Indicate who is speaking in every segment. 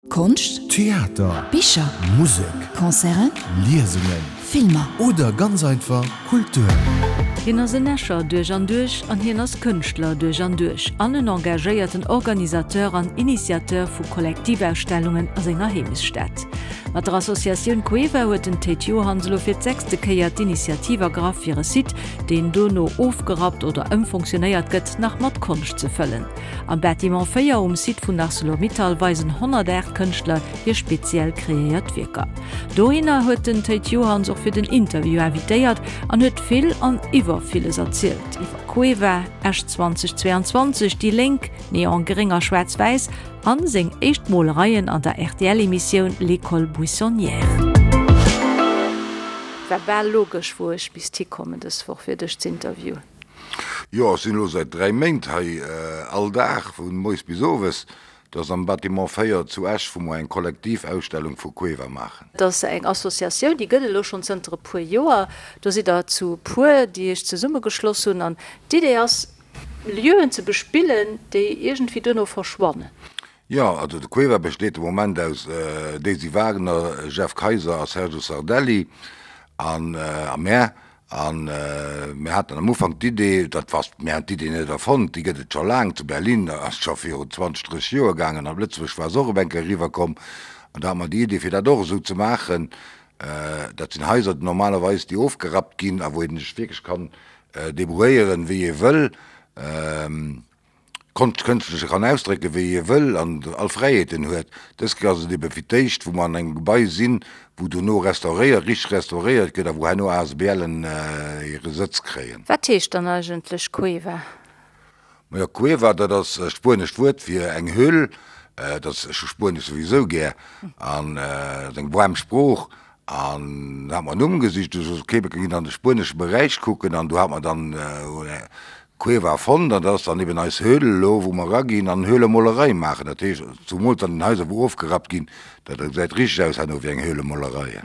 Speaker 1: Konscht,
Speaker 2: Theater,
Speaker 1: Bicher,
Speaker 2: Musek,
Speaker 1: Concerten,
Speaker 2: Liesungen,
Speaker 1: Filmer.
Speaker 2: Oder ganz einfach Kultur.
Speaker 3: Hien ass en Escher duerch an duerch an hien ass Kënschtler duerch an duerch an en engagéierten Organisateur an Initiateur vu Kollektivausstellungen a senger Heemechtsstad. Mat der Associatioun Cueva huet den Théid Johanns elo fir d'sechste Kéier d'Initiativ ergraff fir e Site, deen dono ofgerappt oder ëmfonctionéiert gëtt, nach mat Konscht ze fëllen. Am Bâtiment 4 um Site vun Arcelor-Mittal weisen 108 Kënschtler hir speziell kreéiert Wierker. Dohinner huet den Théid Johanns och fir den Interview invitéiert an huet vill an iwwer villes erzielt, iwwer Cueva, Esch 2022, déi Lénk, Neon Gréng a Schwaarz-Wäiss an seng éischt Molereien an der RTL-Emissioun L'École Buissonnière. War bal logesch wou ech misst hikommen dës Woch fir dech z'interviewen.
Speaker 4: Jo, ech sinn elo säit 3 Méint hei, all Dag vu moies bis owes. Dat ass am Bâtiment 4 zu Esch, wou mer eng Kollektivausstellung vu Cueva maachen.
Speaker 3: Dat ass eng Associatioun, déi gëtt et elo schonn zënter e puer Joer. Do sidd der zu puer, déi iech zesummegeschloss hunn. An d'Idee ass, Lieuen ze bespillen, déi iergendwéi duerno verschwannen.
Speaker 4: Jo, also de Cueva besteet de Moment aus Daisy Wagner, Jeff Kayser a Sergio Sardelli an a mär. A mir haten am Ufank d'Idee, dat war, mir han d'Idee net erfonnt, déi gëtt et scho laang, zu Berlin ass et scho viru 20, 30 Joer gaangen, op Lëtzebuerg war se och op eng Kéier eriwwerkomm. An da hate mer déi Idee fir dat och esou ze maachen. Dat sinn Haiser normalerweis, déi ofgerappt ginn a wou een sech wierklech kann debrouilléieren, wéi ee wëll. Konscht kënschtlech kann ausdrécken, wéi ee wëll an all Fräiheeten huet. Dës Kéier ass et ebe fir d'éischt, wou mer an engem Gebai sinn, wou dono restauréiert, richteg restauréiert gëtt a wou herno ASBLen hire Sëtz kréien.
Speaker 3: Wat heescht dann eigentlech Cueva?
Speaker 4: Majo, Cueva, dat ass e spuenescht Wuert fir eng Höhl. Dat ass, ech hu Spuenesch souwisou gär an et ass eng waarm Sprooch. An da hat mer en Numm gesicht, du sos, ok, mir ginn an de spuenesche Beräich kucken an do hat mer dann Cueva fonnt an dat ass dann eben eis Höhle elo, wou mer eraginn an Höhlemolerei maachen. Dat heescht, zumools an den Haiser, wou ofgerappt ginn, dat gesäit richteg aus herno wéi eng Höhlemolerei.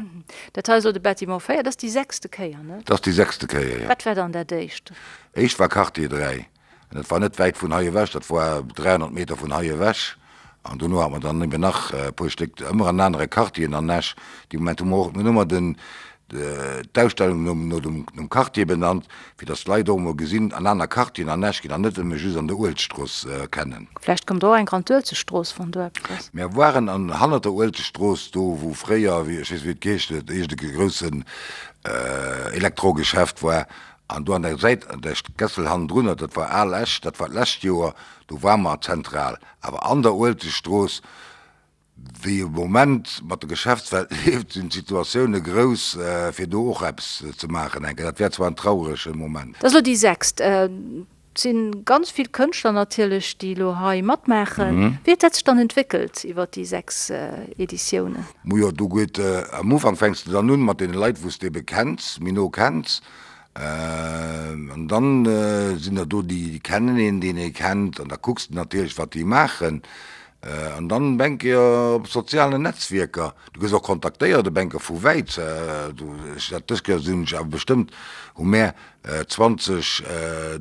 Speaker 3: Dat hei ass elo de Bâtiment 4, dat ass déi sechste Kéier, ne?
Speaker 4: Dat ass déi sechste Kéier, jo.
Speaker 3: Wat war dann dat éischt?
Speaker 4: Éischt war Quartier 3. An dat war net wäit vun hei ewech, dat war 300 Meter vun hei ewech. An dono hat mer dann eben nach e puer Stéck, ëmmer an anere Quartieren an Esch. Dee Moment hu mer och, mir hunn ëmmer den, d'Ausstellung nom, no dem, nom Quartier benannt, fir datt d'Leit och emol gesinn, an aner Quartieren an Esch ginn an net nëmme just an der Uelzechtstrooss kennen.
Speaker 3: Vläicht kommt och eng an d'Uelzechtstrooss, wann do eppes ass.
Speaker 4: Mir waren an, hannert der Uelzechtstrooss, do wou fréier, wéi, ech weess net wéi et geheescht huet, iergend e groussen Elektrogeschäft war, An do an der Säit, an der Gässel hannendrunner, dat war Al Esch, dat war d'lescht Joer, do ware mer zentral. Awer an der Uelzechtstrooss, wéi e Moment mat der Geschäftswelt leeft, sinn d'Situatioune grouss, fir do och eppes ze maachen enke. Dat wär zwar en traurege Moment.
Speaker 3: Dat ass elo déi sechst. Et si ganz vill Kënschtler natierlech, déi elo hei matmaachen. Wéi huet dat sech dann entwéckelt iwwer déi 6 Editiounen?
Speaker 4: Mujo, do geet, am Ufank fänks de dann un mat deene Leit, wou s de ebe kenns, méi no kenns. An dann sinn der do, déi kennen een, deen ee kennt, an da kucks de natierlech, wat déi maachen. An dann op eng Kéier op sozialen Netzwierker, du gëss och kontaktéiert op eng Kéier vu wäit. Ech dat dës Kéier sinn ech awer bestëmmt, hu mär 20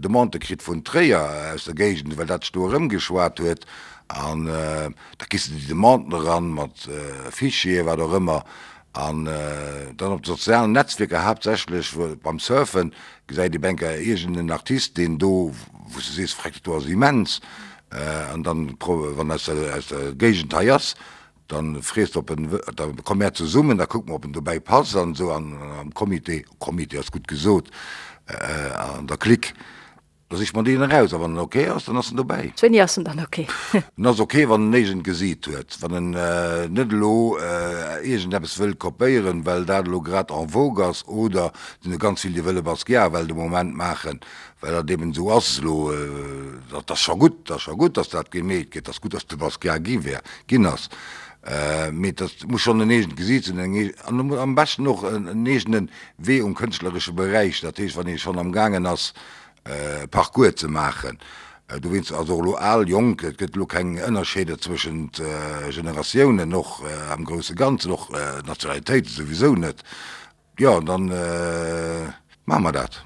Speaker 4: Demandë kritt vun Tréier aus der Géigend, well dat sech do erëmgeschwat huet. An da kriss de déi Demanden eran mat Fichieren, wat och ëmmer. An dann op de sozialen Netzwierker, haaptsächlech beim Surfen, gesäit ee op eng Kéier iergend en Artist, deen do, wou s de sees, Freck, dat do ass immens. An dann, wann aus der, aus der Géigend hei ass, dann frees de, ob en, da komme mär zesummen, da kucke mer, ob en dobäi passt an esou. An am Comité, Comité ass gutt gesot, an der Clique, Da sicht mer deen eraus a wann en ok ass, dann ass en dobäi.
Speaker 3: Wéini ass en dann ok?
Speaker 4: En ass ok, wann en iergend Gesiit huet, wann en net elo iergendeppes wëll kopéieren, well dat elo grad en vogue ass, oder et sinn der ganz vill, déi wëlle Basquiat well de Moment maachen, well dat eben esou ass elo. Dat ass scho gutt, dat ass scho gutt, datt dat gemeet gëtt, dat ass gutt, datt de Basquiat gi wär, ginn ass, mee dat muss schonn en eegent Gesiit sinn, eng eegen, an am beschten och en eegene Wee um kënschtleresche Beräich, dat heescht, wann ee schonn amgaangen ass, e Parcours ze maachen. Dowéinst ass och elo al, jonk, et gëtt elo keng Ënnerscheeder zwëschent Generatiounen, och am grousse Ganzen, och Nationalitéite souwisou net. Jo, an dann maache mer dat.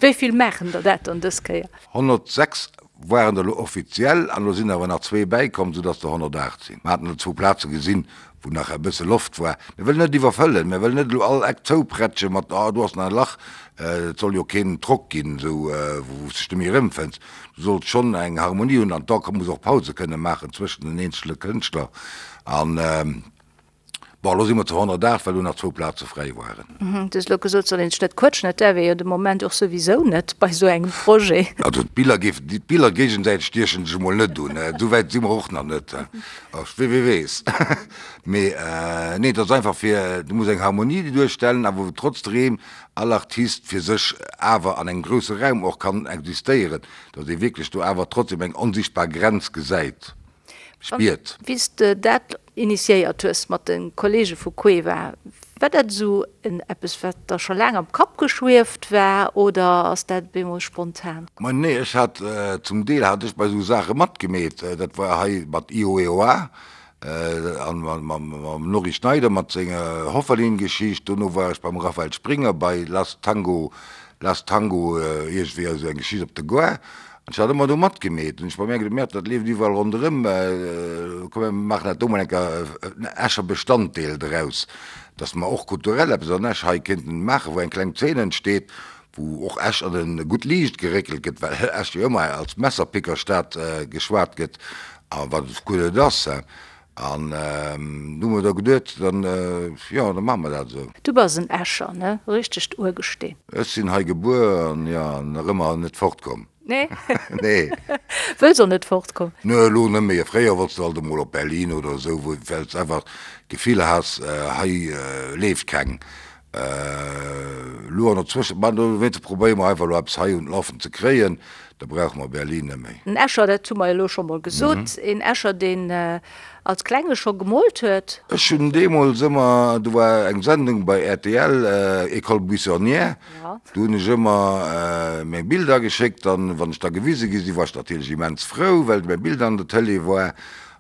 Speaker 3: Wéi vill maachen der dat dann dës Kéier?
Speaker 4: 106. Waren der elo offiziell, an elo sinn awer nach zwee bäikomm, soudass der 108 sinn. Mer haten elo zwou Plaze gesinn, wou nach e bësse Loft war. Mir wëllen net iwwerfëllen, mir wëllen net elo all Eck zouprätsche mat, oh do ass nach e Lach. Et soll jo keen Drock ginn, esou wou s dech net méi erëmfënns. Du solls schonn eng Harmonie hunn an da muss och Pause kënne maachen zwëschen den eenzele Kënschtler. An Bon, elo si mer zu 108, well do nach zwou Plaze fräi waren.
Speaker 3: Du hues elo gesot, et soll een sech net quëtschen. Dat däerf ee jo de Moment och souwisou net bei esou engem Projet.
Speaker 4: Also d'Biller géifen, d'Biller géigesäiteg stiechen sech emol net un. Esou wäit si mer och nach net. Wie weess. Mee nee, et ass einfach fir, du muss eng Harmonie duerstellen, awer wou trotzdeem all Artist fir sech awer an engem grousse Raum och kann existéieren, datt ee wierklech do awer trotzdem eng onsichtbar Grenz gesäit.
Speaker 3: Spiert. Wéi s de dat initiéiert hues mat de Kollege vu Cueva, war dat esou en eppes, wat der scho laang am Kapp geschwieft war oder ass dat op eemol spontan?
Speaker 4: Ma nee, ech hat, zum Deel hat ech bei esou Saache matgemeet. Dat war hei mat IOEOA an mam Norry Schneider mat senger Hofferlin-Geschicht. Dono war ech beim Raphael Springer bei Last Tango, Last Tango iergendwéi, esou eng Geschicht op der Gare. An ech hat ëmmer do matgemeet. Hunn ech bei mär geduet, Mäert, dat leeft iwwerall ronderëm, komm mir maachen dat do mol eng Kéier en Escher Bestanddeel draus, dass mer och kulturell eppes an Esch hei kéinten maachen, wou eng kleng Zeen entsteet, wou och Esch an e gutt Liicht geréckelt gëtt, well Esch jo ëmmer als Messerpickerstad geschwat gëtt, a wat et guer net ass. An du hu mer da geduet, dann, jo, da maache mer dat esou.
Speaker 3: Du bass en Escher, ne? Richtegt Urgesteen.
Speaker 4: Ech sinn hei gebuer an, jo, nach ëmmer net fortkomm.
Speaker 3: Nee?
Speaker 4: Nee.
Speaker 3: Wëlls och net fortkomm?
Speaker 4: Ne, elo net méi. Fréier wollts de alt emol op Berlin oder esou, wou, well s einfach d'Gefill has, hei leeft keng. Elo an der Zwëschen, ma dowéinst probéiere mer einfach elo eppes hei un d'Lafen ze kréien, da brauche mer Berlin net méi.
Speaker 3: En Escher, dat hu mer jo elo scho mol gesot, een Escher, deen als Klenge scho gemoolt huet.
Speaker 4: Ech hunn deemools ëmmer, do war eng Sendung bei rtl, École buissonnière, do hunn ech ëmmer meng Bilder geschéckt an wann ech da gewise gi sinn, war ech natierlech immens frou, well mäi Bild an der Tëlee war.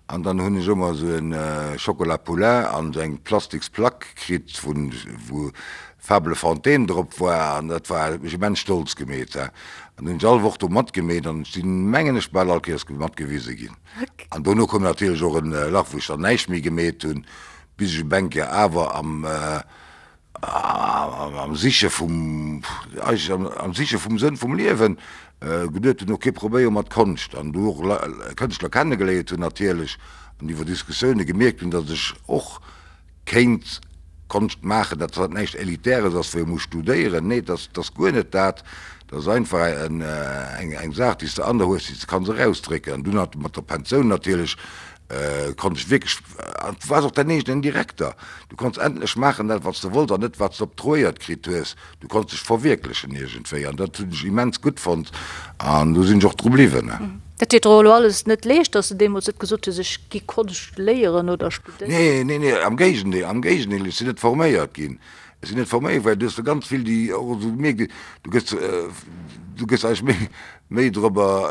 Speaker 4: An dann hunn ech ëmmer esou en Chocolat Poulain an esou eng plastiks Plack kritt vun wou Fable Fontaine drop war an dat war huet mech immens stolz gemeet. An hunn ech all Woch do matgemeet an ech sinn mengen ech bal all Kéiers matgewise ginn. An dono koum natierlech och en Lach wou ech dann näischt méi gemeet hunn bis ech op eng Kéier awer am Am Siche vum, eigentlech am Siche vum Sënn vum Liewen, geduet hunn, ok, probéiere mer d'Konscht. An du och Kënschtler kennegeléiert hunn natierlech an iwwer Diskussioune gemierkt hunn, datt ech och kéint Konscht maachen, datt dat näischt Elitäres ass, wou ee muss studéieren. Nee, dat ass guer net dat. Dat ass einfach eng Saach, déi s de an der hues, déi s de kanns erausdrécken. An dunn mat der Pensioun natierlech Konnt ech wierklech, an du waars och däin eegenen Direkter, du konns endlech maachen dat wat s de wollts an net wat s de obtruéiert kritt hues, du konns dech verwierklechen iergendwéi an dat hunn ech immens gutt fonnt an do sinn ech och dru bliwwen.
Speaker 3: Dat deet der och elo alles net leescht, datt s de deemools net gesot hues, ech gi Konscht léieren oder studéieren?
Speaker 4: Nee, nee, nee, am Géigendeel, am Géigendeel, ech sinn net forméiert ginn, ech sinn net forméiert, well du hues der ganz vill déi och esou gemierkt, du gëss, du gëss eigentlech méi, méi dorobber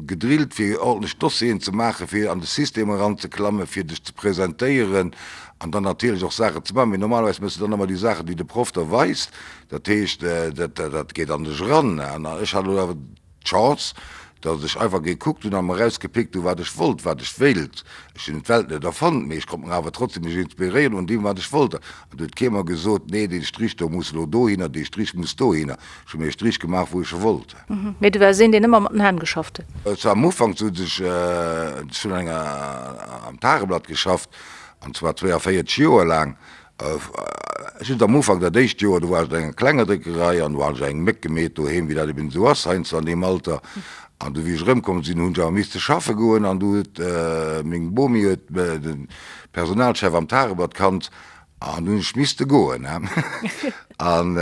Speaker 4: gedrillt fir ordentlech Dossieren ze maachen, fir an de System eranzeklammen, fir dech ze presentéieren an dann natierlech och Saachen ze maachen. Mee normalerweis méchs de dann ëmmer déi Saachen, déi de Proff der weist. Dat heescht, dat dat geet an dech eran. An ech hat elo awer d'Chance, datt ech einfach gekuckt hunn a mer erausgepickt hunn, wat ech wollt, wat ech wéilt. Ech hunn d'Welt net erfonnt, mee ech konnt mer awer trotzdem mech inspiréieren un deem, wat ech wollt. An do huet kee mer gesot, nee, dee Strich do muss elo dohinner, dee Strich muss dohinner. Ech hu mir e Strich gemaach, wou ech e wollt.
Speaker 3: Mee du waars een, deen ëmmer mat den Hänn geschafft
Speaker 4: huet? Zwar am Ufank sot ech, ech hunn an enger, am Tageblatt geschafft, an zwar 42 Joer laang. Just am Ufank, dat éischt Joer, do war ech an enger klenger Dréckerei an do hat ech eng Méck gemeet doheem, wéi dat eben esou ass heiansdo an deem Alter. An du wéi ech erëmkomm sinn, hunn ech awer misste schaffe goen an du huet meng Bomi huet de Personalchef am Tageblatt kannt An du hunn ech misste goen. An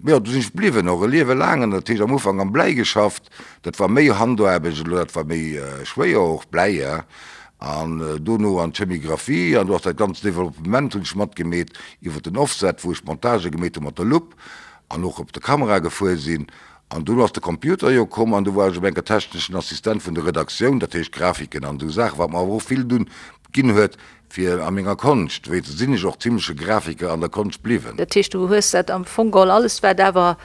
Speaker 4: jo, du sinn ech bliwwen, och e Liewe laang. An dat heescht am Ufank am Bläi geschafft, dat war méi Handaarbecht elo, dat war méi schwéier och, Bläi, ja. An dono an d'Chemigraphie an do ass dat ganzt Developpement hunn ech matgemeet iwwer den Offset, wou ech d'Montage gemeet hu mat der Lupp an och op der Kamera gefuer sinn. An dunn ass de Computer jo komm an du war ech op enker techneschen Assistent vun der Redaktioun, dat heescht Grafiken an esou Saachen, wat mer awer och vill dunn ginn huet fir a menger Konscht, wéi sinn ech och zimleche Grafiker an der Konscht bliwwen.
Speaker 3: Dat heescht, du hues dat am Fong geholl alles, wat awer.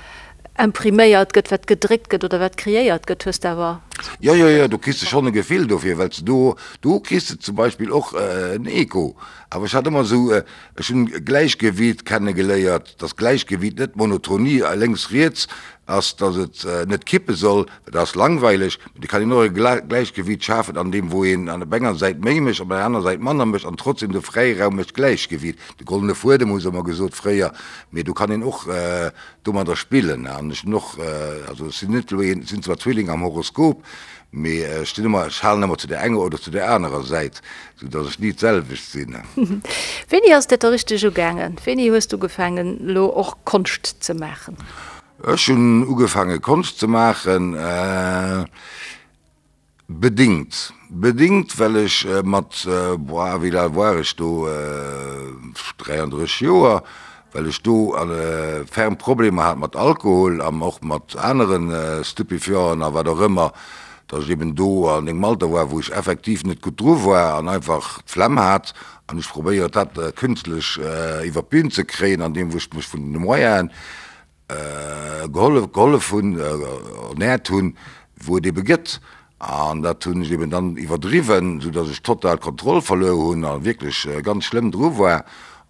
Speaker 3: Impriméiert gëtt, wat gedréckt gëtt oder wat kreéiert gëtt, hues de awer.
Speaker 4: Jo, jo, jo, do kriss de schonn e Gefill dofir, well s de do, do kriss de zum Beispill och en Echo. Awer ech hat ëmmer esou, ech hunn Gläichgewiit kennegeléiert, dass Gläichgewiit net Monotonie lénks, riets ass, dass et net kippe soll, well dat ass langweileg, mee et kann een och e Gläichgewiit schafen an deem wou een an op enger Säit méi mécht, op der anerer Säit manner mécht an trotzdem de Fräiraum mécht Gläichgewiit. De goldene Fuedem hu se ëmmer gesot fréier, mee do kann een och domadder spillen an ech hunn och, also ech sinn net elo een, ech sinn zwar Zwilling am Horoskop, mee ech stinn ëmmer, ech halen ëmmer zu där enger oder zu där anerer Säit, sou datt ech ni d'selwecht sinn.
Speaker 3: Wéini ass dat da richteg ugaangen? Wéini hues du ugefaangen elo och Konscht ze maachen?
Speaker 4: Ech hunn ugefaange Konscht ze maachen, Bedingt. Bedingt, well ech mat, boah, wéi al war ech do, 33 Joer, well ech do ferm Problemer hat mat Alkohol an och mat anere Stupéfianten a wat och ëmmer, datt ech eben do an engem Alter war, wou ech effektiv net gutt dru war an einfach d'Flemm hat an ech probéiert hat, künstlech iwwer d'Bün ze kréien, andeem wou ech mech vun de Moyenen gehollef, gehollef hunn, ernährt hunn, wou et ebe gëtt. An dat hunn ech eben dann iwwerdriwwen, sou datt ech total d'Kontroll verluer hunn a wierklech ganz schlëmm dru war.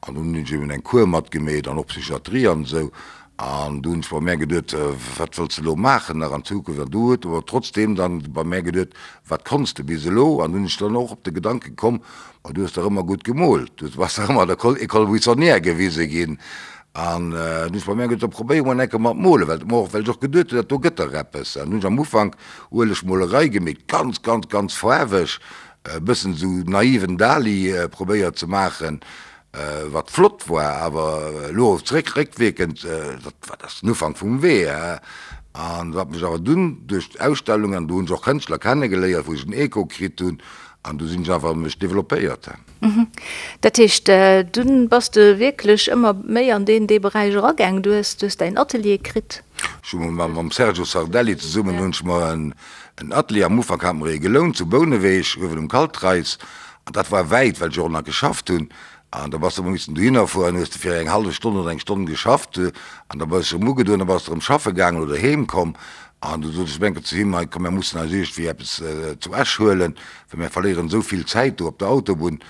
Speaker 4: An dunn hunn ech eben eng Kur matgemeet an och Psychiatrie an esou. An du hunn ech bei mär geduet, wat wëlls de elo maachen nach an Zukunft? An du huet awer trotzdeem dann bei mär geduet, wat konns de bis elo? An dunn hunn ech dann och op de Gedanke komm, ma du hues dach ëmmer gutt gemoolt, du bass dach ëmmer an der École buissonnière gewise ginn. An dunn hu ech bei mär geduet, da probéiere mer eng Kéier mat molen, well och well ech och geduet hunn, dat do gëtt dach eppes. An dunn hunn ech am Ufank Uelegmolerei gemeet, ganz, ganz, ganz faarweg, e bëssen esou naiven Dali probéiert ze maachen, wat flott war, awer elo zeréck, réckwierkend, dat war, dat ass den Ufank vum Wee. An wat mech awer dunn duerch d'Ausstellung, an do hunn ech och Kënschtler kennegeléiert, wou ech en Echo kritt hunn, an du sinn ech einfach mech developpéiert.
Speaker 3: Dat heescht, dunn bass de wierklech ëmmer méi an deen dee Beräich eragaang. Du hues, du hues däin Atelier kritt.
Speaker 4: Ech hu mer mam Sergio Sardelli zesummen hunn ech mer en Atelier, am Ufank hate mer ee gelount zu Bouneweg, uewen um Kaltreis, an dat war wäit, well ech och nach geschafft hunn, an da bass de ëmmer missen dohinner fueren, hues de fir eng hallef Stonn oder eng Stonn geschafft, an da bass de erëm ugedoen, da bass de erëm schaffe gaangen oder heem komm, an du sot ech eng Kéier zu him, hei komm, mer mussen eis iergendwéi eppes zu Esch huelen, Well mir verléieren esou vill Zäit do op der Autobunn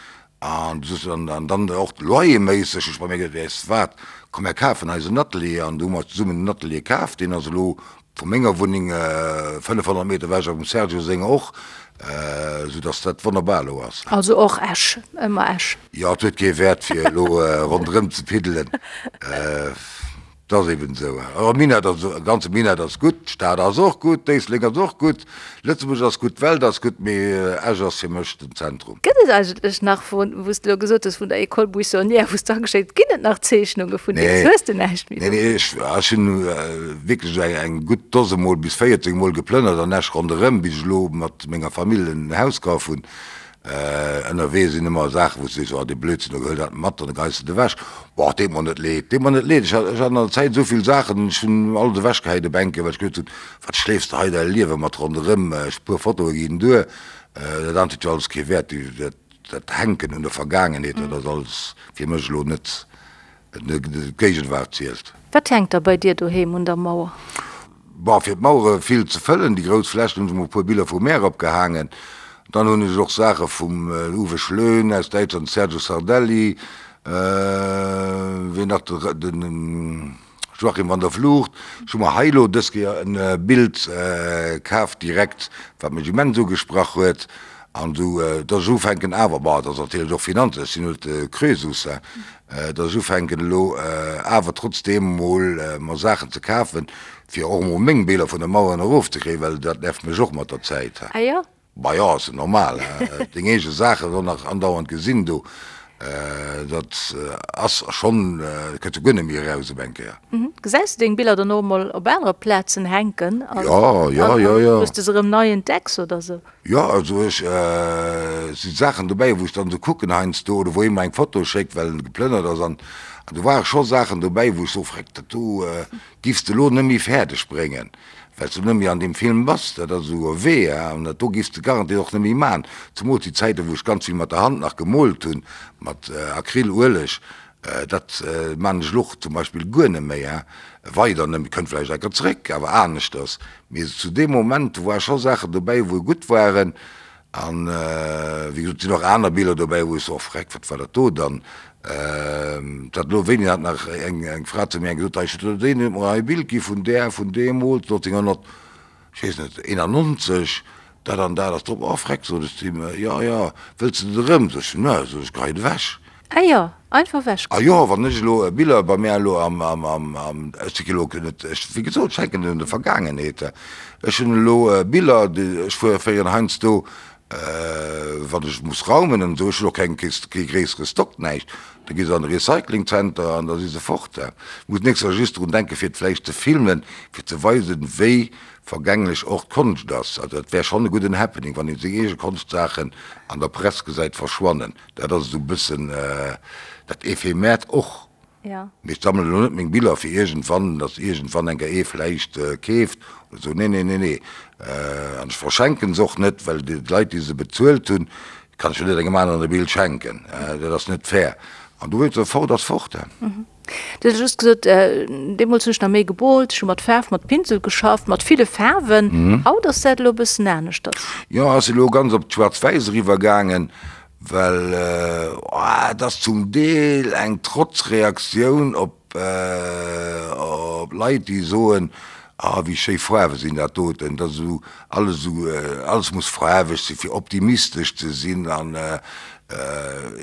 Speaker 4: an du soss an dann och loyerméisseg. Ech bei mir geduet, weess de wat, komm mir kafen eis en Atelier an du hu mer zesummen en Atelier kaf. Deen ass elo vu menger Wunneng 500 Meter ewech a vum Sergio senger och, esou datt dat wonnerbar elo ass.
Speaker 3: Also och Esch, ëmmer Esch.
Speaker 4: Jo, et huet kee Wäert fir elo ronderëm ze piddelen. Et ass eben esou. E Minett ass, e ganze Minett ass gutt, d'Stad ass och gutt, Éislek ass och gutt, Lëtzebuerg ass gutt, d'Welt ass gutt, mee Esch ass fir mech den Zentrum.
Speaker 3: Gëtt et eigentlech nach, wou s de elo gesot hues, vun der École buissonnière, wou s de ageschéckt, ginn et nach Zeechnunge vun deem? Hues de näischt
Speaker 4: méi do? Nee, nee, ech, ech hunn wierklech eng, eng gutt Dose Mol bis 14 Mol geplënnert an Esch ronderëm, bis ech elo mat menger Famill en Haus kaf hunn. Ënnerwee sinn ëmmer Saachen, wou s du sees, oh dee Blödsinn, da huel dat mat an da geheis de et ewech. Boah, deet mer net leed, deet mer net leed. Ech hat, ech hat an der Zäit esou vill Saachen, ech hunn alles ewechgehäit op eng Kéier, well ech geduet hunn, wat schleefs de hei däi Liewe mat ronderëm, ech puer Fotoe ginn duer, dat anert huet jo alles kee Wäert, dat, dat Hänken un der Vergaangenheet, dat ass alles fir mech elo net D'Géigenwaart zielt.
Speaker 3: Wat hänkt da bei dir doheem un der Mauer?
Speaker 4: Bon, fir d'Mauere vill ze fëllen, déi grouss Flächen, hunn ech mol e puer Biller vum Meer opgehaangen. Dann hunn ech och Saache vum Uwe Schlöhn aus Däitschland, Sergio Sardelli, wien nach, de Joachim van der Vlugt. Ech hu mer hei elo dës Kéier e Bild kaf direkt, wat mech immens ugesprach huet. An esou, dass ech ufänken awer, bon, dat ass natierlech och Finanzen, ech sinn net de Krösus, hein, dass ech ufänken elo awer trotzdeem emol mer Saachen ze kafen, fir och emol meng Biller vun de Maueren erofzekréien, well dat nervt mech och mat der Zäit.
Speaker 3: Ah jo?
Speaker 4: Bah jo, ass jo normal, hein, deng eege Saachen och nach andauernd gesinn do, dat ass schonn, kënns jo guer net méi eraus op eng Kéier.
Speaker 3: Gesäis de deng Biller dann och emol op anere Plazen hänken?
Speaker 4: Jo, jo, jo, jo.
Speaker 3: Wou s de se erëm nei entdecks oder sou?
Speaker 4: Jo, also ech si Saachen dobäi, wou ech dann esou kucken heiansdo oder wou ee mer eng Foto schéckt, well en geplënnert ass an do ware scho Saachen dobäi, wou ech soe, Freck, dat do giffs de elo net méi fäerdeg bréngen, well s de net méi an deem Film bass. Dat ass esou e Wee, an dat do giffs de garantiert och net méi maachen. Zemools déi Zäiten, wou ech ganz vill mat der Hand nach gemoolt hunn, mat Acryl, Ueleg. Dat maan ech elo och zum Beispill guer net méi, hein. Weider net méi, kënnt vläicht enker zréck, awer aneschters. Mee zu deem Moment, do ware scho Saachen dobäi, wou gutt waren. An wéi gesot, et sinn och aner Biller dobäi, wou ech soen, oh freck, wat war dat do dann? Dat elo, wéini hat nach eng Fra zu mir eng gesot, ech huet deen huet mer hei e Bild gi vun där, vun deemools, 1900, ech weess net, 91, dat an dat ass drop. Oh freck, sot ech zu him, jo, jo, wëlls de et erëm? Sot ech, ne, sot ech, geheit ewech.
Speaker 3: Ah jo, einfach ewech.
Speaker 4: Ah jo, wann ech elo Biller bei mär elo am, am, am, am, ech si elo net, ech, wéi gesot, ech hänken un der Vergaangenheet. Ech hunn elo Biller, déi, ech fuere féieren heiansdo, wann ech muss raumen an esou, ech hunn och keng, kee gréissere Stock, näischt, da gi se an de Recyclingzenter an da si se fort. Ech muss nächst Joer just drun denken, fir et vläicht ze filmen, fir ze weisen, wéi vergänglech och d'Konscht ass. Also dat wär schonn e gudden Happening, wann ee seng eege Konshtsaachen an der Press gesäit verschwannen. Dat ass esou e bëssen dat Ephemeert och. Mee ech sammelen elo net meng Biller fir iergendwann, datt iergendwann eng Kéier ee vläicht keeft oder esou. Nee, nee, nee, nee. An ech verschenken se och net, well déi Leit, déi se bezuelt hunn, kann ech jo net engem aneren e Bild schenken. Dat ass net fair. An du wéilt se fort, ass fort.
Speaker 3: Du hues just gesot, deemools hunn ech nach méi gemoolt, ech hu mat Faarf, mat Pinsel geschafft, mat ville Faarwen. Haut ass dat elo e bëssen aneschters.
Speaker 4: Jo, ass elo ganz op d'Schwaarz-Wäiss eriwwer gaangen, well et ass zum Deel eng Trotzreaktioun op op Leit, déi soen, ah wéi schéi Faarwe sinn dat doten, dat ass esou alles esou, alles muss faarweg sinn, fir optimistesch ze sinn an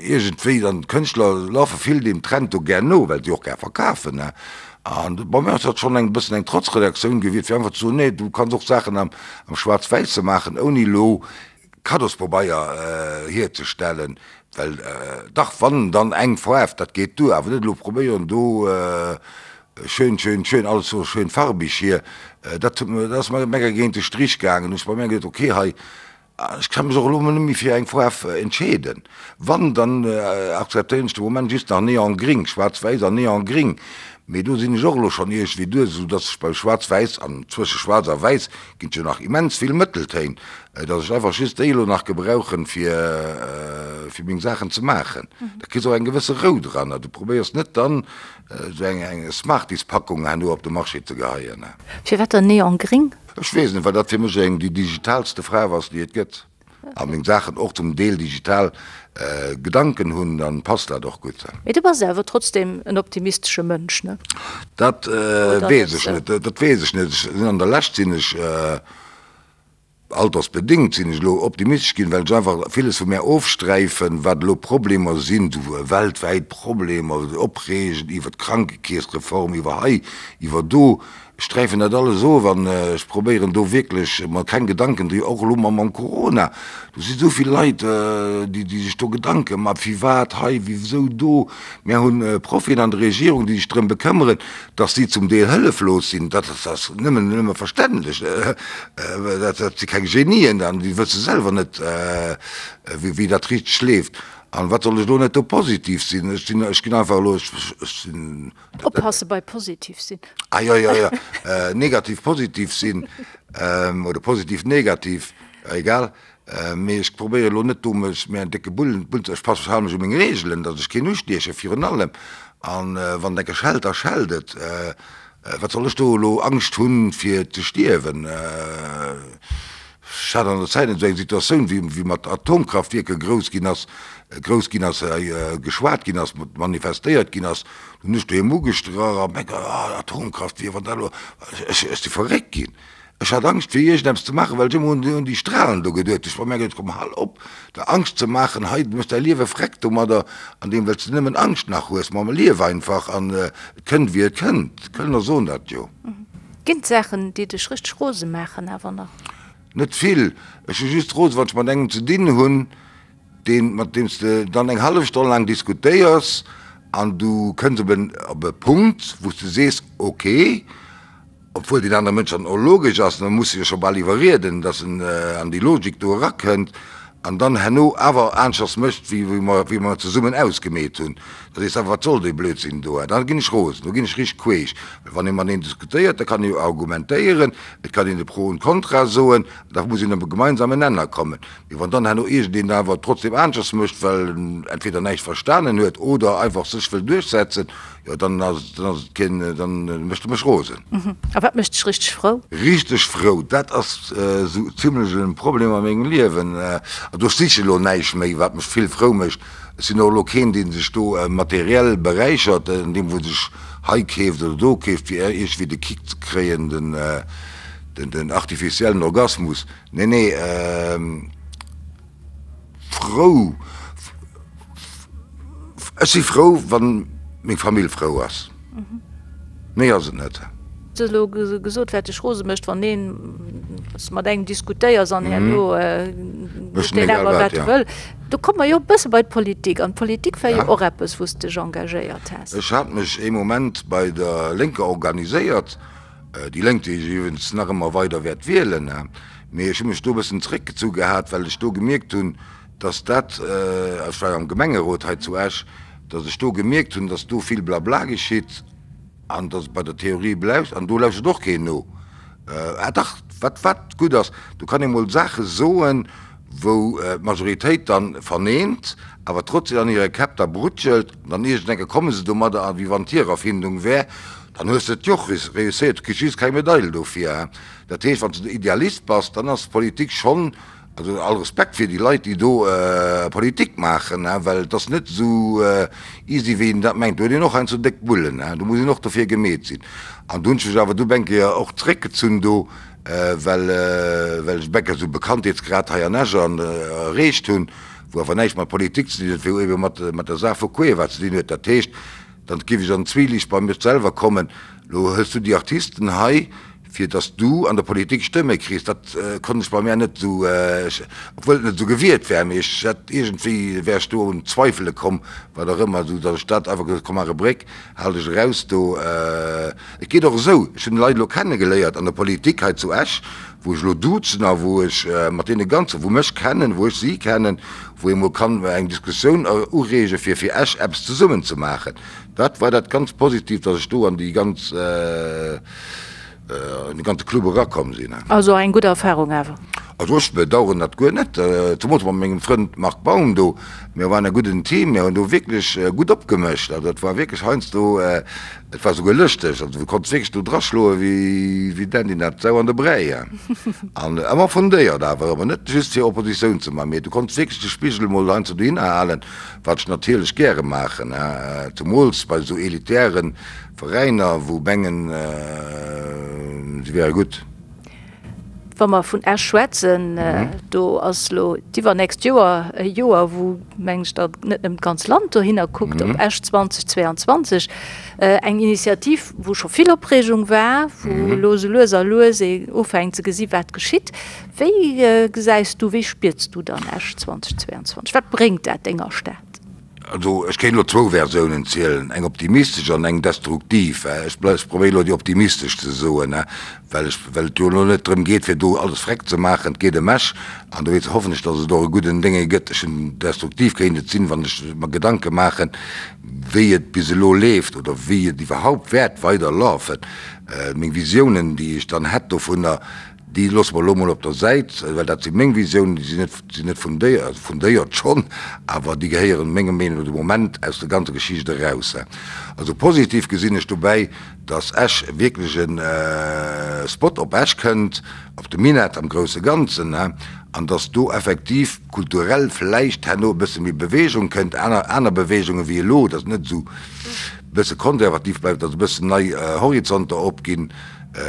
Speaker 4: Iergendwéi dann, d'Kënschtler lafe vill deem Trend do gär no, well si och gär verkafen, ne. An bei mir ass dat schonn eng bëssen eng Trotzreaktioun gewiescht, fir einfach ze soen, nee, du kanns och Saachen am Schwaarz-Wäisse maachen, ouni elo Kaddospabeier hierzestellen, well dach, wann dann eng Faarf, dat geet duer, awer net elo probéieren do schön, schön, schön, alles sou schön farbig hier, dat huet mir, dat ass mer mega géint de Strich gaangen. Hunn ech bei mir geduet, okay, hei Ech ka mech och elo net méi fir eng Faarf entscheeden. Wann, dann akzeptéieren ech de Moment just nach Neongring, schwaarz-wäiss an Neongring. Mee do sinn ech och elo schonn iergendwéi duer, esou dass ech beim schwaarz-wäiss, an zwësche schwaarz a wäiss ginn et jo nach immens vill Mëtteltéin, dass ech einfach just déi elo nach gebrauchen, fir fir meng Saachen ze maachen. Da kriss och eng gewësse Rou dran a du probéiers net dann esou eng Smarties-Packung herno op de Marché ze geheien.
Speaker 3: Firwat dann Neongring?
Speaker 4: Ech weess net, well dat fir mech eng déi digitalste Faarf ass, déi et gëtt. A meng Saachen och zum Deel digital Gedanken hunn, dann passt dat och gutt.
Speaker 3: Mee du bass awer trotzdem en optimistesche Mënsch, ne?
Speaker 4: Dat weess ech net, dat weess ech net. Ech sinn an der Lescht sinn ech, altersbedéngt sinn ech elo optimistesch ginn, well ech einfach villes vu mär ofsträifen, wat elo Problemer sinn, esou weltwäit Problemer, opreegen iwwer d'Krankekeessreform, iwwer hei, iwwer do. Ech sträifen dat alles of an ech probéieren do wierklech mer keng Gedanken dri, och elo mam Corona, do si sou vill Leit, déi déi sech do Gedanke ma firwat hei, wisou do. Mär hunn Profien an der Regierung, déi sech drëm bekëmmeren, datt si zum Deel hëlleflos sinn. Dat ass nëmmen nëmme verständlech, dat dat si keng Genien an déi wësse selwer net, wéi wéi dat richteg leeft. An wat soll ech elo net do positiv sinn? Ech sinn, ech ginn einfach elo, ech sinn.
Speaker 3: Oppasse bei positiv sinn.
Speaker 4: Ah jo, jo, jo. Negativ positiv sinn oder positiv negativ, egal. Mee ech probéiere elo net do mech mir en décke Bullen, Bullen ze, ech passe, ech hale mech u meng Reegelen, datt ech keen ustieche virun allem. An wann et enke schellt, da schellt et. Wat soll ech do elo Angscht hunn fir ze stierwen? Ech hat an der Zäit esou eng Situatioun, wéi wéi mat Atomkraftwierker grouss ginn ass, grouss ginn ass, geschwat ginn ass, manifestéiert ginn ass. Do hunn ech doheem ugestrach a mengen, ah, Atomkraftwierk, wann dat elo, ech ech si verréckt ginn. Ech hat Angscht fir iergendeppes ze maachen, well ech ëmmer un déi un déi Strahlen do geduet hunn. Ech hu mer geduet, komm hal op der Angscht ze maachen, hei, du méchs däi Liewe vreckt domadder, an deem well s de nëmmen Angscht nach hues. Ma lief einfach an et kënnt wéi et kënnt. D'Kölner soen dat jo.
Speaker 3: Ginn et Saachen, déi dech richteg rose maachen awer nach?
Speaker 4: Net vill. Ech si just rose, wann ech mat engem ze dinn hunn, deen, mat deem s de dann eng hallef Stonn laang diskutéiers an du kënns op en, op e Punkt, wou s de sees, ok, obwuel deen anere Mënsch dann och logesch ass, da muss de jo scho bal iwwerrieden, datt en an déi Logik do erakënnt. an dann herno awer aneschters mécht, wéi mer, wéi mer zesummen ausgemeet hunn, da sees de awer, wat soll dee Blödsinn do? Da ginn ech rosen, do ginn ech richteg queesch. Well wann ee mateneen diskutéiert, da kann ee jo argumentéieren, et kann een de Pro und Contra soen, da muss een op e gemeinsamen Nenner kommen. Mee wann dann herno iergendeen awer trotzdem aneschters mécht, well en entweder näischt verstanen huet oder einfach sech wëll duerchsetzen, jo dann ass dann ass et keen, dann mécht e mech rosen.
Speaker 3: A wat mécht dech richteg frou?
Speaker 4: Richteg frou, dat ass esou zimlech e Problem a mengem Liewen. Also ech siche elo näischt méi, wat mech vill frou mécht. Ech sinn och elo keen, dee sech do materiell beräichert, andeem wou sech hei keeft oder do keeft, fir iergendwéi de Kick ze kréien, den den artificiellen Orgasmus. Nee, nee, frou, ech si frou, wann meng Famill frou ass. Méi ass et net.
Speaker 3: Du hues elo gesot, wat dech rose mécht, wann een mat engem diskutéiers an herno mécht deen awer, wat e wëll. Do komme mer jo e bësse bei d'Politik. An d'Politik war jo och eppes, wou s de dech engagéiert has.
Speaker 4: Ech hat mech ee Moment bei der Lénker organiséiert. Déi Lénk, déi ech iwwregens nach ëmmer weider wäert wielen, mee ech hu mech do e bëssen zeréckgezu gehat, well ech do gemierkt hunn, dass dat, ech war jo am Gemengerot hei zu Esch, dass ech do gemierkt hunn, dass do vill Blabla geschitt an dass et bei der Theorie bleift an do lauschtert och keen no. Ah dach, wat, wat gutt ass, do kann ee mol Saache soen, wou d'Majoritéit dann verneent, awer trotzdem an hire Käpp da brutschelt, an dann iergendeng Kéier komme se domadder, a wéi wann et hir Erfindung wär, dann hues de et jo och reusséiert, du kriss just keng Medail dofir. Dat heescht, wann s de Idealist bass, dann ass d'Politik schonn, also all Respekt fir déi Leit, déi do Politik maachen, well et ass net esou easy, wéi een dat mengt. Do huet een och heiansdo déck Bullen, do muss een och dofir gemeet sinn. An do hunn ech mech awer du eng Kéier och zeréckgezunn do, well well ech Bäcker esou Bekanntheetsgrad hei an Esch an erreecht hunn, wou awer näischt mat Politik ze dinn huet, wou ebe mat mat der Saach vu Cueva ze dinn huet. Dat heescht, dann géif ech an Zwielicht bei mech selwer kommen, Lo hëls du déi Artisten hei, fir datt s du an der Politik Stëmme kriss. Dat konnt ech bei mär net esou, obwuel et net esou gewiert wär, mee ech hätt iergendwéi wär ech do un Zweifele komm, wat och ëmmer, esou datt ech dat einfach gesot hu, komm maach e Bréck, hal dech eraus do. Et geet och esou, ech hunn Leit elo kennegeléiert an der Politik hei zu Esch, wou ech elo duzen a wou ech mat deene ganze, wou mech kennen, wou ech si kennen, wou ee mol kann eng Diskussioun ureege fir fir Esch eppes zesummen ze maachen. Dat war dat ganz Positiivt, datt ech do an déi ganz, an de ganze Club erakomm sinn.
Speaker 3: Also eng gutt Erfahrung awer?
Speaker 4: Also ech bedauern dat guer net, zemools mat mengem Frënd Marc Baum do. Mir waren e gudden Team, mir hunn do wierklech gutt opgemëscht. Also dat war wierklech heiansdo, et war souguer lëschteg. Also du konns wierklech do draschloe wéi wéi d'Andy dat Sau an de Bräi. An ëmmer fundéiert awer, ëmmer net just fir Oppositioun ze man, mee du konns wierklech de Spigel emol heiansdo dohinner halen, wat ech natierlech gäre maachen, zemools bei esou elitären Veräiner wou mengen se wäre gutt.
Speaker 3: Wa mer vun Esch schwätzen, do ass elo d'iwwernächst Joer e Joer, wou, mengen ech, da net nëmmen d'ganz Land dohinner kuckt, op Esch 2022. Eng Initiativ, wou scho vill Opreegung war, wou elo esou lues a lues ee ufänkt ze gesi wat geschitt. Wéi gesäis du, wéi spiers du dann Esch 2022? Wat bréngt dat denger Stad?
Speaker 4: Also ech kéint elo zwou Versiounen zielen, eng optimistesch an eng destruktiv. Ech probéieren elo déi optimistesch ze soen, well ech, well et jo elo net drëm geet fir do alles vreckt ze maachen. Et geet ëm Esch an dowéinst hoffen ech, datt et och e gudden Dénge gëtt. Ech hunn, destruktiv kéint et sinn, wann ech mer Gedanke maachen, wéi et bis elo leeft oder wéi et iwwerhaupt wäert weider lafen. Meng Visiounen, déi ech dann hätt dovunner, Déi loosse mer elo mol op der Säit, well dat si meng Visiounen, déi sinn net, sinn net fundéiert, also fundéiert schonn, awer déi gehéieren menger Meenung no de Moment aus der ganzer Geschicht eraus. Also positiv gesinn ech dobäi, datt Esch wierklech e Spot op Esch kënnt, op de Minett am grousse Ganzen, an datt do effektiv kulturell vläicht herno e bësse méi Bewegung kënnt, aner, aner Beweegungen wéi elo, datt et net esou e bësse konservativ bleift, datt e bëssen nei Horizonter opginn.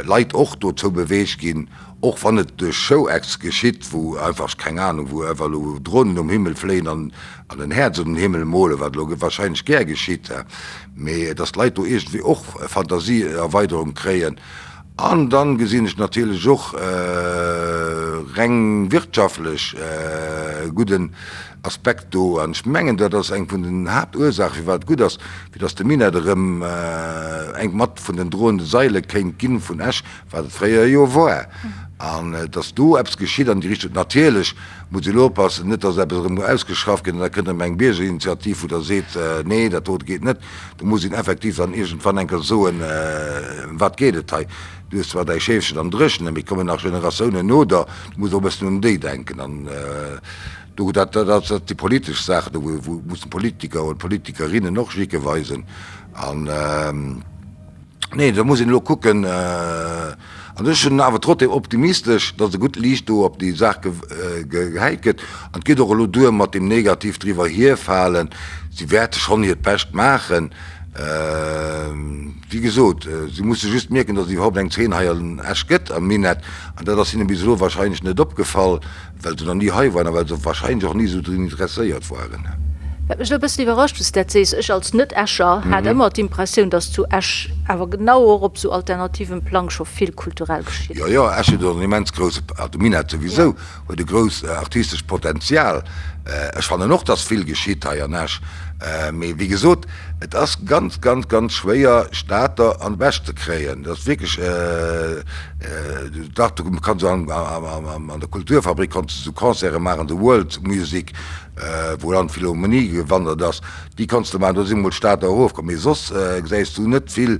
Speaker 4: Leit och dozou beweegt ginn, och wann et duerch Show-Acts geschitt, wou einfach, keng Ahnung, wou einfach elo Dronen um Himmel fléien an en Häerz un den Himmel molen, wat elo wahrscheinlech gär geschitt, mee dass d'Leit do iergendwéi och Fantasieerweiderung kréien. An dann gesinn ech natierlech och reng wirtschaftlech e gudden Aspekt do, an ech mengen, dat ass eng vun den Haaptursaachen, firwat et gutt ass, fir datt de Minett erëm eng mat vun den droende Saile kéint ginn vun Esch, wat et fréier jo war. An dass do eppes geschitt an déi Richtung. Natierlech muss een elo oppassen, net dass eppes erëm ausgeschafft gëtt an da kënnt erëm eng Biergerinitiativ, wou da seet, nee, dat dote geet net. Do muss een effektiv dann iergendwann eng Kéier soen, Ëm wat geet et hei? Du hues zwar däi Scheefchen am Dréchenen, mee et kommen nach Generatiounen no der, du muss och e bëssen un déi denken. An do, dat, dat si politesch Saachen, do wou mussen d'Politiker oder d'Politikerinnen och Jicke weisen. An. Nee, do muss een elo kucken. An ech sinn awer trotzdem optimistesch, datt e gutt Liicht do op déi Saach gehäit gëtt. An et geet och elo duer mat deem negativ driwwer hierfalen. Si wäerte schonn hiert Bescht maachen. Wéi gesot, si musse just mierken, datt et iwwerhaupt eng Zeen hei an Esch gëtt am Minett. An dat ass hinne bis elo wahrscheinlech net opgefall. Well se nach ni hei waren a well se wahrscheinlech och ni esou drun interesséiert waren.
Speaker 3: Wat mech elo e bëssen iwwerrascht, wou s de dat sees, ech als Net-Escher hat ëmmer d'Impressioun, datt zu Esch awer genau och op esou alternativem Plang scho vill kulturell geschitt.
Speaker 4: Jo, jo, Esch huet och en immens grousse, also de Minett souwisou, huet e grousst artistescht Potenzial. Ech fannen och, datt vill geschitt hei an Esch. Mee wéi gesot, et ass ganz, ganz, ganz schwéier, Stater an d'Bech ze kréien. Dat ass wierklech, dach, du kanns an der Kulturfabrik konns de sou Concerte maachen, sou World Music, wou an d'Philharmonie gewandert ass, déi konns de maachen, do si mol d'Stater erofkomm. Mee soss gesäis du net vill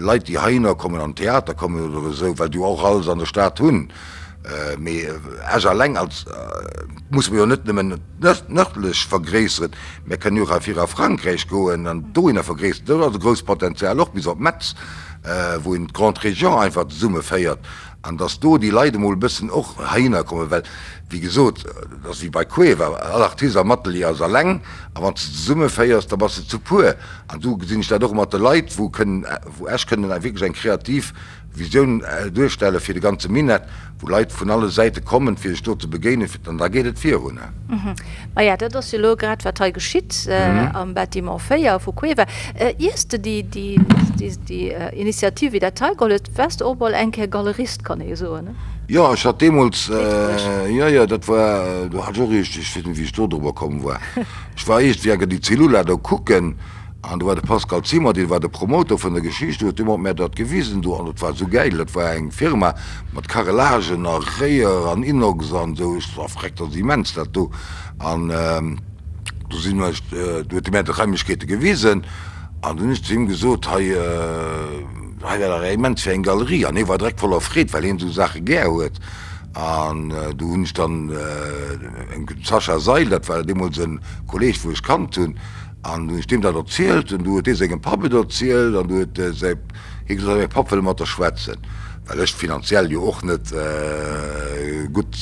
Speaker 4: Leit, déi heihinner kommen, an d'Theater kommen oder esou, well déi jo och alles an der Stad hunn. Mee Esch alleng als musse mer jo net nëmmen nërdlech vergréisseren, mer kënnen jo och erfir a Frankräich goen an dohinner vergréisseren. Do ass e grousst Potenzial och bis op Metz, wou een d'Grande Région einfach zesummeféiert an datt do déi Leit emol e bëssen och heihinner kommen, well wéi gesot, et ass wéi bei Cueva, all Artist am Atelier ass alleng a wann s de zesummeféiers, da bass de zu puer. An do gesinn ech dat och mat de Leit, wou kënnen, wou Esch kënnen wierklech eng kreativ Visioun duerstelle fir de ganze Minett, wou Leit vun alle Säite kommen, fir sech do ze begéinen, an da geet et virun.
Speaker 3: Maja, dat ass jo elo grad, wat hei geschitt am Bâtiment 4 vu Cueva. Iers de déi Initiativ wéi dat hei geholl hues, waars de och mol eng Kéier Galerist, kann ee soen, ne?
Speaker 4: Jo, ech hat deemools, jo, jo, dat war, do hat ech och iergend, ech weess net, wéi ech do drobber komm war, ech war iergendwéi eng Kéier déi Cellula do kucken, An do war de Pascal Zimmer, dee war de Promoter vun der Geschicht, huet deemol mär dat gewisen do an dat war esou gäil. Dat war eng Firma mat Carrelagen a Réier an Inox an esou. Ech sot, Freck, dat ass immens dat do. An do sinn ech, do huet e mär d'Raimlechkeete gewisen an dunn hunn ech zu him gesot, hei, hei wär dach immens fir eng Galerie. An hie war direkt voller Freed, well hien esou Saache gär huet. An do hunn ech dann dem Sascha Seil, dat war deemools e Kolleeg, wou ech kannt hunn, An du hunn ech deem dat erzielt, an du huet dee sengem Papp et erzielt, an du huet säi, hie gesot, mäi Papp wëll mat der schwätzen, well ech finanziell jo och net gutt,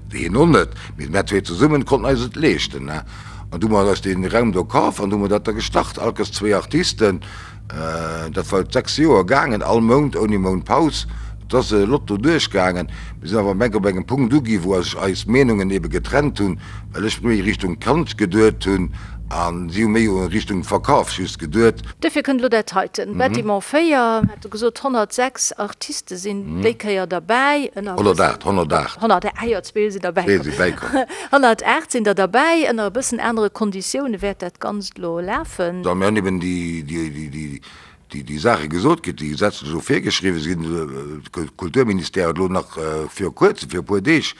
Speaker 4: hien och net, mee mär zwee zesummen konnten eis et leeschten. An du hu mer eis dee Raum do kaf an du hu mer dat da gestart, all Kéiers zwéi Artisten. Dat war 6 Joer gaangen, all Mount, ouni Mount Paus. Et ass e Lotto duerchgaangen. Mir sinn awer am Enk op engem Punkt ugi wou sech eis Meenungen ebe getrennt hunn, well ech méi Richtung Kand geduet hunn a si hu méi Richtung Verkaf just geduet.
Speaker 3: Duerfir kënnt elo dat heiten, Bâtiment 4, hat e gesot, 106 Artiste sinn déi Kéier derbäi, ënner e
Speaker 4: bëssen. 108,
Speaker 3: 108. 108, ah jo, zwee sinn derbäi komm. Zwee si bäikomm. 108 sinn der derbäi, ënner e bëssen anere Konditioune wäert dat Ganzt elo lafen.
Speaker 4: Mir hunn eben déi Saache gesot kritt, déi gesetzlech elo virgeschriwwen sinn. De Kulturministère huet elo nach viru Kuerzem, viru e puer Deeg,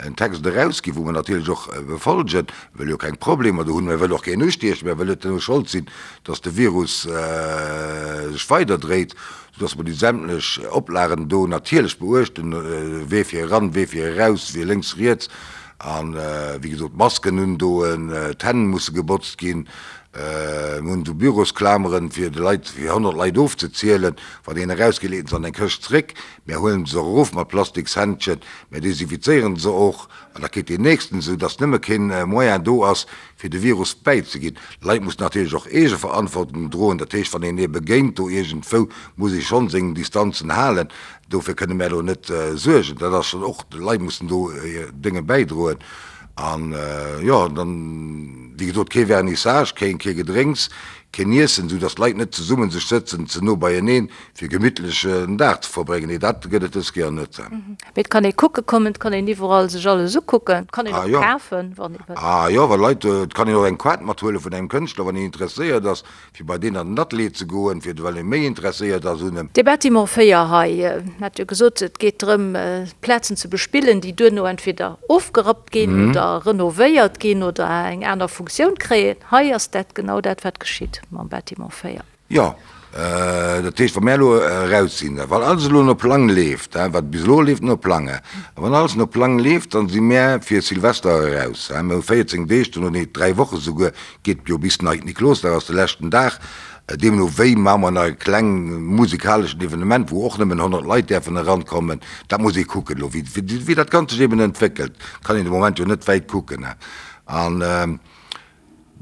Speaker 4: en Text erausginn, wou mer natierlech och befolgen. Mir wëlle jo keng Problemer do hunn, mir wëlle och keen ustiechen, mir wëlle net elo Schold sinn, datt de Virus sech weiderdréit, soudatt mer déi sämtlech Oplagen do natierlech beuechten, wee fir eran, wee fir eraus, wee lénks, riets. A wéi gesot, d'Masken undoen, d'Hänn musse gebotzt ginn. Mir hunn esou Bürosklameren, fir de Leit, fir 100 Leit ofzezielen. Wann een erausgeet, leet en se an eng Këscht zréck. Mär huelen se och erof mat Plastikshändschen. Mär desinfizéieren se och an da kritt deen Nächsten, esou dass nëmme keen Moyen do ass, fir de Virus bäizeginn. D'Leit mussen natierlech och Eegeverantwortung droen. Dat heescht, wann een ee begéint do iergendwou, muss ee schonn seng Distanzen halen. Dofir kënne mär elo net suergen. Dat ass schonn och, d'Leit mussen do hir Dénge bäidroen. An jo, dann, wéi gesot, kee Vernissage, keen, kee Gedrénks. Keen Iessen, esou dass d'Leit net zesummen sech sëtzen, ze no beieneen, fir gemittlech en Dag ze verbréngen. Nee, dat gëtt et dës Kéier net.
Speaker 3: Mee et kann ee kucke kommen, et kann een iwwerall sech alles ukucken, et kann een och kafen, wann ee wëll.
Speaker 4: Ah jo, wa Leit, et kann een och eng Kaart mathuele vun engem Kënschtler, wann een interesséiert ass, fir bei deen an den Atelier ze goen, fir well ee méi interesséiert ass un em.
Speaker 3: Dee Bâtiment 4 hei, hat jo gesot, et geet drëm, Plazen ze bespillen, déi duerno entweder ofgerappt ginn oder renovéiert ginn oder eng aner Funktioun kréien. Hei ass dat genau dat, wat geschitt mam Bâtiment 4.
Speaker 4: Jo, dat heescht, wa mär elo eraus sinn, wann alles elo no Plang leeft, wat bis elo leeft no Plang, a wann alles no Plang leeft, dann si mär fir Silvester eraus. Mir hu 14 Deeg dono, nee 3 Woche souguer, geet jo bis Neit Niklosdag ass de leschten Dag. Deemno wéi maache mer nach e kleng musikaleschen Evenement, wou och nëmmen 100 Leit däerfen erankommen. Dat muss ee kucken elo, wéi dat Ganzt sech eben entwéckelt. Kann een de Moment jo net wäit kucken. An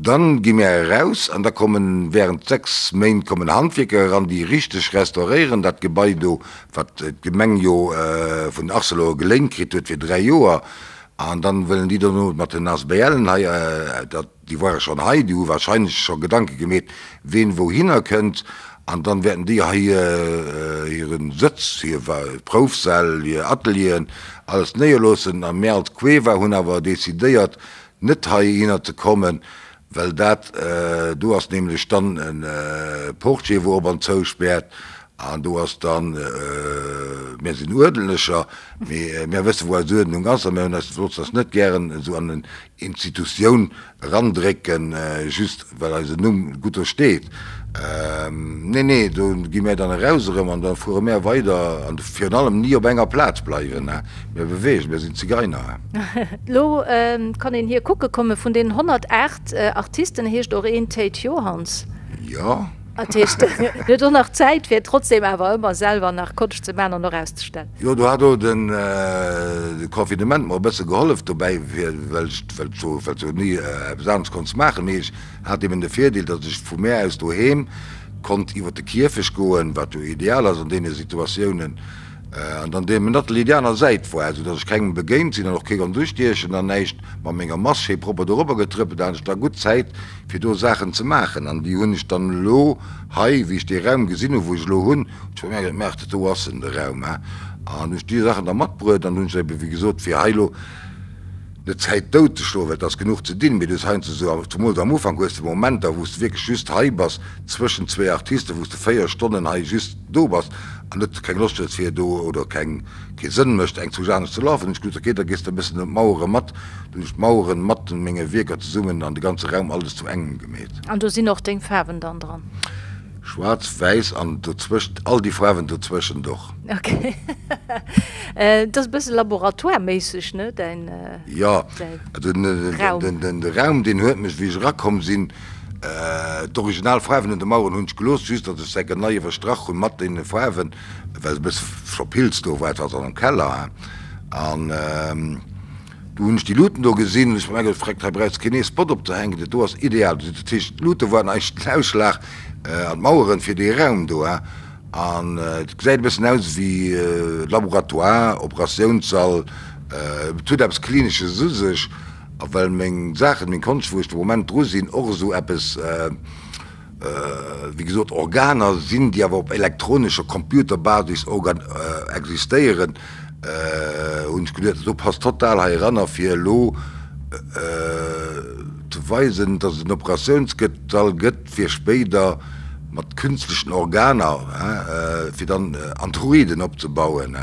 Speaker 4: Dann gi mär eraus an da kommen während 6 Méint kommen Handwierker eran, déi richteg restauréieren dat Gebai do, wat d'Gemeng jo vun Arcelor geléint kritt huet fir 3 Joer. An dann wëllen déi dono mat den ASBLen hei, dat, déi ware schonn hei, déi hu wahrscheinlech scho Gedanke gemeet, ween wouhinner kënnt. An dann wäerten déi hei hiren Sëtz, hir Proufsäll, hir Atelieren, alles néierloossen. A mär als Cueva hunn awer decidéiert, net heihinner ze kommen, well dat do ass nämlech dann e Portier wou op an zou späert an do ass dann, mir sinn Uerdentlecher, mee mir wësse wou eis Uerdnung ass a mir hunn eis, loossen eis net gären esou an en Institutioun erandrécken, just well eisen Numm gutt do steet. Nee, nee, do gi mär dann eraus erëm an da fuere mär weider an virun allem ni op enger Plaz bleiwen. Mir beweegen, mir sinn Zigeiner.
Speaker 3: Lo kann een hir kucke kommen. Vun den 108 Artisten heescht och een Théid Johanns.
Speaker 4: Jo.
Speaker 3: Dat heescht, en huet och nach Zäit, fir trotzdem awer ëmmer selwer nach Konscht ze maachen an och auszestellen.
Speaker 4: Jo, do hat och de Confinement mer e bësse gehollef dobäi, well ech jo ni eppes anescht konnt maachen. Mee ech Hat eben de Virdeel, datt ech vu mär aus doheem konnt iwwer de Kierfecht goen, wat jo ideal ass an deene Situatiounen, an dann deem Atelier déi aner Säit war, esou datt ech kengem begéint sinn an och kee konnt ustiechen an näischt mat menger Mask schéi propper dorobber getrëppelt. Da hat ech da gutt Zäit fir do Saachen ze maachen an déi hunn ech dann elo hei, wéi ech dee Raum gesinn hu wou ech elo hunn, hunn ech bei mär geduet, Maach, dat do ass en, de Raum, he, an hunn ech déi Saachen da matbruet an hunn ech ebe wéi gesot fir hei elo Net Zäit dout ze schloen, well et ass genuch ze dinn, mee du hues heiansdo esou, zumools am Ufank hues de Momenter, wou s de wierklech just hei bass, zwëschen zwee Artisten, wou s de 4 Stonnen hei just do bass an net keng Loscht hues fir do, oder keng, kee Sënn mécht eng Zuch anescht ze lafen. Hunn ech gesot, ok, da gees de e bëssen ëm d'Mauere mat. Dunn hunn ech d'Maueren mat menge Wierker zesummen an de ganze Raum alles zu engem gemeet.
Speaker 3: An do sinn och deng Faarwen dann dran?
Speaker 4: Schwaarz, wäiss an dozwëscht, all déi Faarwen dozwëschent och.
Speaker 3: Ok. Et ass e bësse laboratoireméisseg, ne, däin
Speaker 4: Jo,
Speaker 3: Raum?
Speaker 4: De Raum, deen huet mech, wéi ech erakomm sinn, d'original Faarwen un de Maueren hunn ech gelooss, just datt ech se enke nei iwwerstrach hunn mat deene Faarwen, well se e bësse scho Pilz do war, et war se an am Keller, an du hunn ech déi Luuten do gesinn, hunn ech mer geduecht, Freck, hei brauchs de keen ee Spot opzehänken, dat do ass ideal. Dat heescht, d'Luute waren eigentlech den Ausschlag an d'Maueren fir dee Raum do. An et gesäit e bëssen aus ewéi Laboratoire, Operatiounssall. Et huet eppes Klinesches u sech. A well meng Saachen, meng Konscht, wou ech de Moment dru sinn, och esou eppes, wéi gesot, Organer sinn, déi awer op elektronescher Computerbasis existéieren, hunn ech geduet, dat do passt total hei eranner, fir elo ze weisen, datt et en Operatiounsgëtt-Sall gëtt, fir spéider mat künstlechen Organer, fir dann Androiden opzebauen.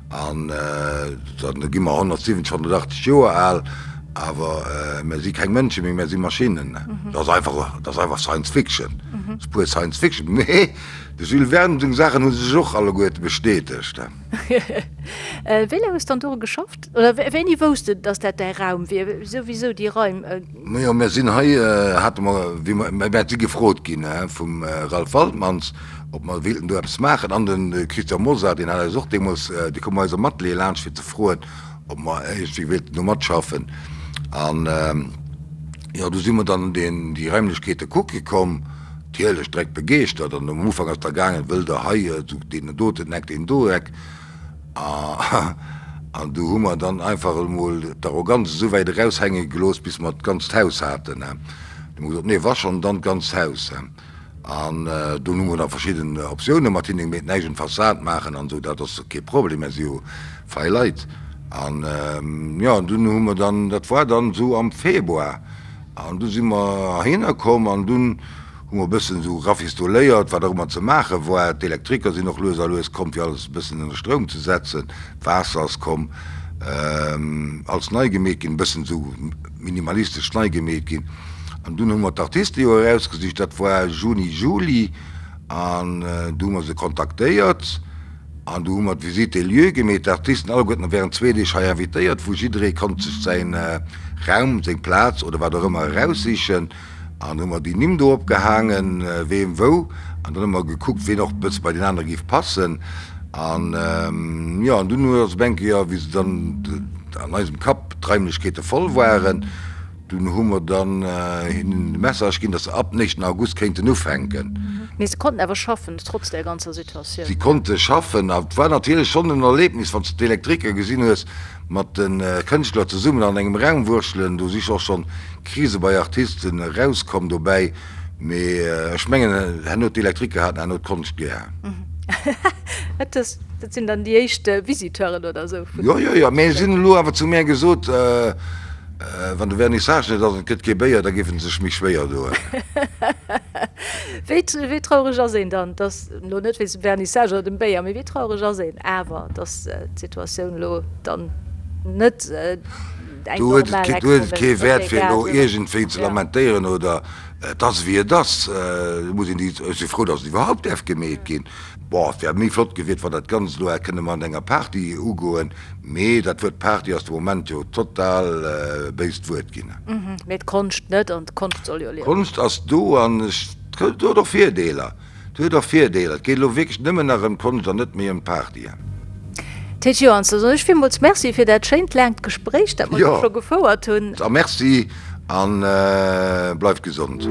Speaker 4: An da gi mer 170, 180 Joer al, awer mir si keng Mënsche méi, mir si Maschinnen. Dat ass einfach, dat ass einfach Science Fiction, dat ass pur Science Fiction. Mee de Jules Verne seng Saachen hu sech och alleguerte bestätegt.
Speaker 3: Wéi laang hues de dann doru geschafft? Oder wéini wousst de, datt dat däi Raum wier? Souwisou déi Raim.
Speaker 4: Majo, mir sinn hei, hate mer, wéi mer, mir si gefrot ginn vum Ralph Waltmanns, ob mer wéilten do eppes maachen. An de Christian Mosar, deen hat eis och deemools, dee koum bei eis am Atelier laanscht, fir ze froen, ob mer iergendwéi wéilten do matschaffen. An, jo, du si mer dann deen, déi Raimlechkeete kucke komm, natierlech direkt begeeschtert. An am Ufank ass da gaangen, wëllt Der hei esou deen doten Eck, deen do Eck. An du hu mer dann einfach emol d'Arroganz esou wäit eraushänge gelooss, bis mer d'ganzt Haus haten. Du hu mer gesot, Nee, wa schonn, dann d'ganzt Haus. An dunn hu mer da verschidden Optioune mat hinne gemeet, näischt un d'Fassad maachen an esou, dat ass kee Problem, mir si jo fei Leit. An jo, an dunn hu mer dann, dat war dann esou am Februar, an du si mer heihinner komm an dunn hu mer e bëssen esou rafistoléiert, wat och ëmmer ze maache war. D'Elektriker sinn och lues a lues komm, fir alles e bëssen ënner Stroum ze setzen. D'Waasser ass komm, alles nei gemeet ginn, e bëssen esou minimalistesch nei gemeet ginn. An dunn hu mer d'Artiste jo erausgesicht, dat war Juni, Juli, an du hu mer se kontaktéiert an du hu mer d'Visite des lieux gemeet. D'Artisten alleguerten während zwee Deeg hei invitéiert, wou jidderee konnt sech säin Raum, seng Plaz oder wat och ëmmer eraussichen. An hu mer déi Nimm do opgehaangen, ween wou. An dann hu mer gekuckt, ween och e bësse bei deen anere géif passen. An jo, an dunn hu ass op eng Kéier, wéi se dann an eisem Kapp d'Raimlechkeete voll waren, dunn hu mer dann hinnen de Message ginn, datt se ab den éischten August kéinten ufänken.
Speaker 3: Mee se konnten awer schaffen, trotz där ganzer Situatioun?
Speaker 4: Si konnte schaffen. A et war natierlech schonn en Erlebnis, wann s de d'Elektriker gesinn hues, mat de Kënschtler zesummen an engem Raum wurschtelen. Do si och schonn Krise bei Artisten erauskomm dobäi, mee ech mengen herno d'Elektriker haten herno d'Konscht gär.
Speaker 3: Dat sinn dann déi éischt Visiteuren oder esou
Speaker 4: vun. Jo, jo, jo, mee si hunn elo awer zu mär gesot, wann de Vernissage net ass an et gëtt kee Béier, da géife se sech méi schwéier doen.
Speaker 3: Wéi, wéi traureg ass een dann, dass, elo net wéinst dem Vernissage oder dem Béier, mee wéi traureg ass een awer, dass d'Situatioun elo dann net
Speaker 4: eng Do huet et, do huet et kee Wäert fir elo iergendwéi ze lamentéieren oder et ass ewéi et ass. Do muss een déi, ech si frou, datt et iwwerhaupt däerf gemeet ginn. Bon, et wär méi flott gewiert, wann dat Ganzt elo hätt kënne mat enger Party ugoen, mee dat Wuert Party ass de Moment jo total e béist Wuert ginn.
Speaker 3: Mee d'Konscht net, an d'Konscht soll jo liewen.
Speaker 4: D'Konscht ass do an ech, et huet och Virdeeler. Et huet och Virdeeler. Et geet elo wierklech nëmmen nach ëm d'Konscht an net méi ëm d'Partyen.
Speaker 3: Ted Joans, da soen ech villmools Merci fir dat schéint laangt Gespréich, dat mer do scho gefouert hunn.
Speaker 4: A Merci a bleift gesond.